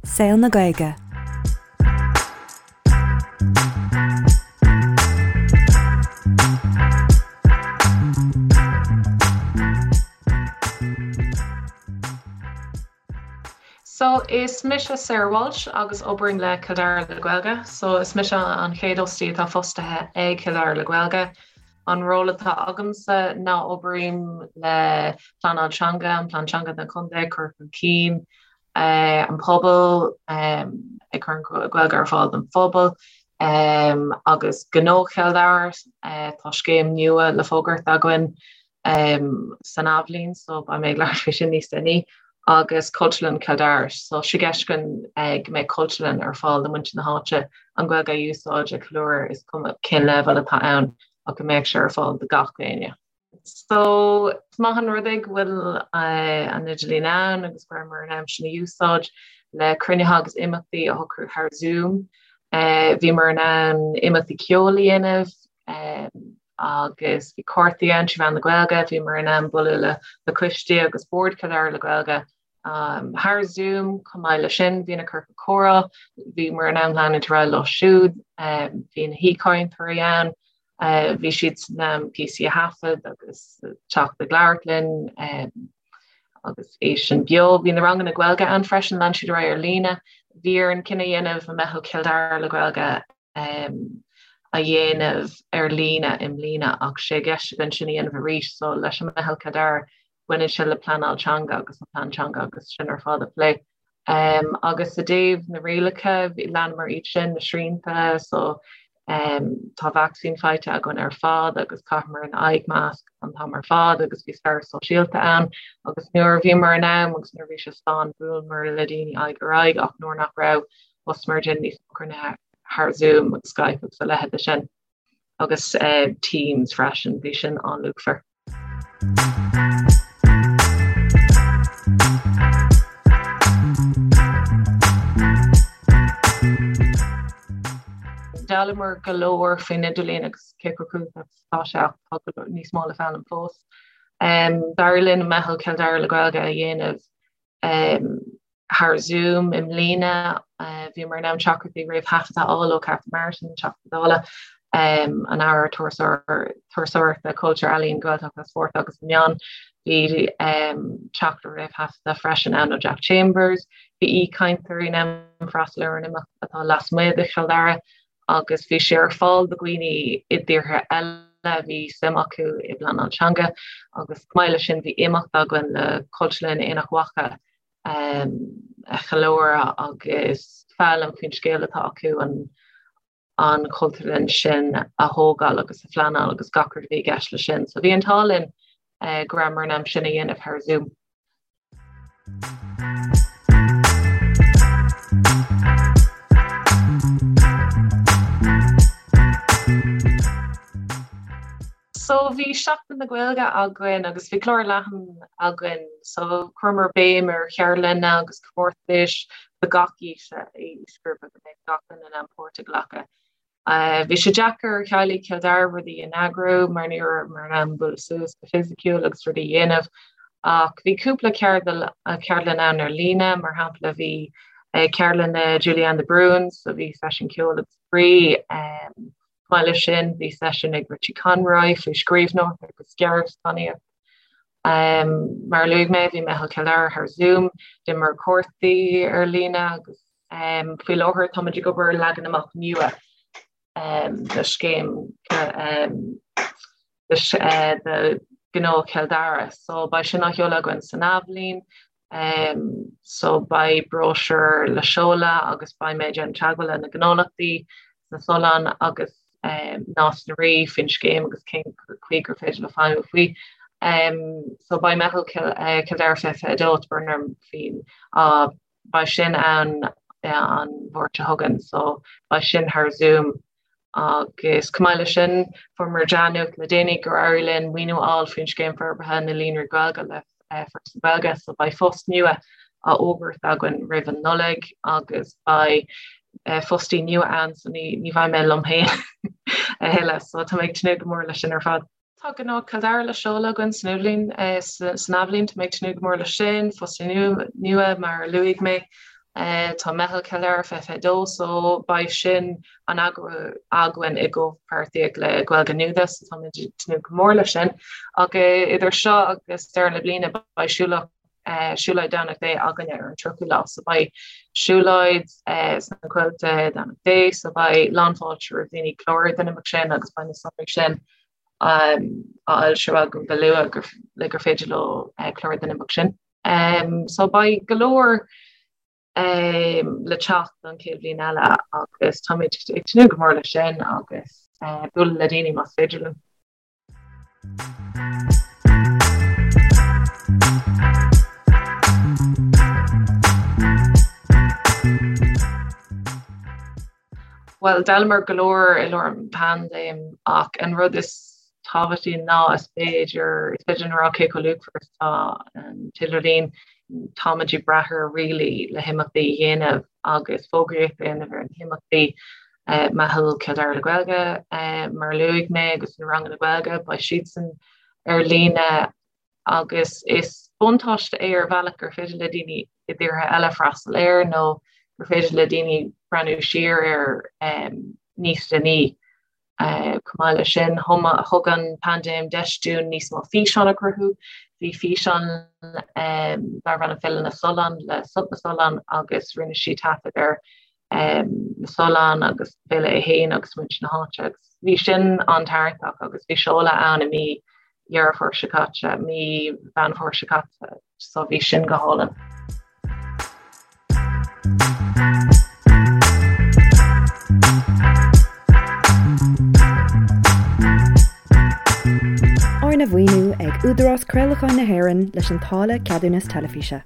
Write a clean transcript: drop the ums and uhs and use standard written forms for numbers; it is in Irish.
Saol na Gaeilge. So, is mise Sarah Walsh agus oibrím le Cill Dara le Gaeilge. So, is mise an chéad fhostaí atá fostaithe ag Cill Dara le Gaeilge. An ról atá agamsa ná oibrím le pleanáil teanga, an plean teanga don chontae, cur chun cinn an pobal, ag cur an Ghaeilge ar fáil don phobal agus Gnó Chill Dara. Tá scéim nua le fógairt againn san athbhliain so beidh mé ag labhairt faoi sin níos déanaí agus Cultúrlann Chill Dara. So sé i gceist againn go mbeidh cultúrlann ar fáil do muintir na háite an Ghaeilge a úsáid a cheiliúradh is cuma cén leibhéal atá ann ach go mbeadh sé ar fáil do gach éinne. So is maith an rud é go bhfuil an idirlíon ann agus go rabhamar in ann sin a úsáid le cruinnithe agus imeachtaí a shocrú thar Zoom. Bhíomar in ann imeachtaí ceoil a dhéanamh agus bhí cártaí ann trí mheán na Gaeilge, bhíomar in ann bualadh le coistí agus Bord Chill Dara le Gaeilge thar Zoom chomh maith leis sin bhí na ciorcail comhrá, bhíomar in ann leanúint ar aghaidh leo siúd, bhí na haoichainteoirí ann, bhí siad in ann píosaí a thaifead agus teacht ag labhairt linn agus é sin beo. Bhí na ranganna Gaeilge ann freisin, lean siad ar aghaidh ar líne. Bhí orainn cinneadh a dhéanamh an Meitheal Chill Dara le Gaeilge a dhéanamh ar líne i mbliana ach sé i gceist againn sin a dhéanamh arís so leis an Meitheal Chill Dara baineann sé le pleanáil teanga agus an plean teanga agus sin ar fad a phlé. Agus i dtaobh na rialacha leanamar iad sin, na srianta so tá vacsaín faighte againn ar fad agus chaitheamar an aghaidh masc an t-am ar fad agus bhí scaradh sóisialta ann agus nuair a bhíomar in am agus nuair a bhí sé slán bhuaileamar le daoine aghaidh ar aghaidh ach nuair nach raibh thosaíomar ag déanamh níos mó cruinnithe thar Zoom agus Skype agus a leithéid de sin agus Teams freisin, bhí sin an-luachmhar. D'fhoghlaimeamar go leor faoin idirlíon agus cé chomh cumhachtach is atá sé ach tá go leor níos mó le foghlaim fós. D'éirigh linn Meitheal Chill Dara le Gaeilge a dhéanamh Thar Zoom i mbliana, bhíomar in ann teachtaireachtaí réamhthaifeadta a fháil ó Catherine Martin, Teachta Dála, an Aire Turasóireachta, Cultúir, Ealaíon, Gaeltachta, Spóirt agus na Meán. Bhí teachtaireacht réamhthaifeadta freisin ann ó Jack Chambers. Bhí aoichainteoirí in ann freastal ar an imeacht atá lasmuigh de Chill Dara agus bhí sé ar fáil do dhaoine i dtíortha eile a bhí suim acu i bpleanáil teanga agus chomh maith leis sin bhí imeacht againn le Cultúrlann Aonach Mhacha a cheiliúradh agus foghlaim faoin scéal atá acu an an chultúrlann sin a thógáil agus a phleanáil agus gach rud a bhí i gceist leis sin. So bhí an t-ádh linn go rabhamar in ann sin a dhéanamh thar Zoom. So bhí Seachtain na Gaeilge againn agus bhí clár leathan againn so chuireamar béim ar cheardlanna agus comórtais do gach aois aoisghrúpa go mbeadh gach duine in ann páirt a ghlacadh. Bhí sé deacair ar theaghlaigh Chill Dara rudaí a eagrú mar ní rabhamar in ann bualadh suas go fisiciúil agus rudaí a dhéanamh ach bhí cúpla ceardlann ann ar líne, mar shampla bhí ceardlann le Julianne de Brún so bhí seisiún ceoil agus spraoi. Chomh maith leis sin bhí seisiún ag Richie Conroy faoi scríbhneoireacht agus gearrscannánaíocht. Mar a luaigh mé bhí Meitheal Chill Dara thar Zoom, d'imir cártaí ar líne agus Faoi láthair táimid ag obair ar leagan amach nua de scéim de Ghnó Chill Dara. So beidh sin á sheoladh againn san athbhliain. So beidh bróisiúr le seoladh agus beidh mé ag déanamh teagmháil le na gnólachtaí sna Solláin agus Nás na Rí faoin scéim agus cén chaoi gur féidir leo feidhmiú faoi. So beidh Meitheal Chill Dara 2022 tá brón orm faoin Beidh sin ann an Mháirt seo chugainn so beidh sin thar Zoom agus chomh maith leis sin fuaireamar dea-nuacht le déanaí gur éirigh linn maoiniú a fháil faoin Scéim Forbartha na Líonraí Gaeilge le Foras na Gaeilge so beidh post nua á fhógairt againn roimh an Nollaig agus beidh fostaí nua ann so ní bheidh mé liom féin a thuilleadh so tá mé ag tnúth go mór leis sin ar fad. Tá Gnó Chill Dara le seoladh againn san athbhliain, san athbhliain. Tá mé ag tnúth go mór leis sin, fostaí nua mar a luaigh mé. Tá Meitheal Chill Dara 2022 so beidh sin á eagrú againn i gcomhpháirtíocht le Gaeilge Nuada so táimid ag tnúth go mór leis sin. Ach idir seo agus deireadh na bliana beidh siúlóid siúlóid Domhnach Dé againne ar an 30ú lá so beidh siúlóid sna Coillte Domhnach Dé so beidh lánfháilte roimh daoine clárú don imeacht sin agus beidh na sonraí sin á fhoilsiú agam go luath le gur féidir leo clárú don imeacht sin. So beidh go leor le teacht don chéad bhliain eile agus táimid ag tnúth go mór leis sin agus bualadh le daoine más féidir linn. Bhuel, d'fhoghlamar go leor i lár an paindéim ach an rud is tábhachtaí ná is féidir, is féidir linn a rá cé chomh luachmhar is atá an t-idirlíon. Táimid ag brath air really le himeachtaí a dhéanamh agus fógraíocht a dhéanamh ar na himeachtaí. Meitheal Chill Dara le Gaeilge, mar a luaigh mé, agus na ranganna Gaeilge, beidh siadsan ar líne agus is buntáiste é ar bhealach gur féidir le daoine i dtíortha eile freastal air nó gur féidir le daoine breathnú siar air níos déanaí. Chomh maith leis sin, thug an paindéim deis dúinn níos mó físeán a chruthú. Bhí físeán darbh ainm Féile na Sollán le Sult na Sollán agus rinne sí taifead ar na Solláin agus an féile é féin agus muintir na háite agus bhí sin an-tarraingteach agus bhí seoladh ann i mí Dheireadh Fómhair seo caite, mí Mheán Fómhair seo caite, so bhí sin go hálainn. Arna mhaoiniú ag Údarás Craolacháin na hÉireann leis an táille Ceadúnas Teilifíse.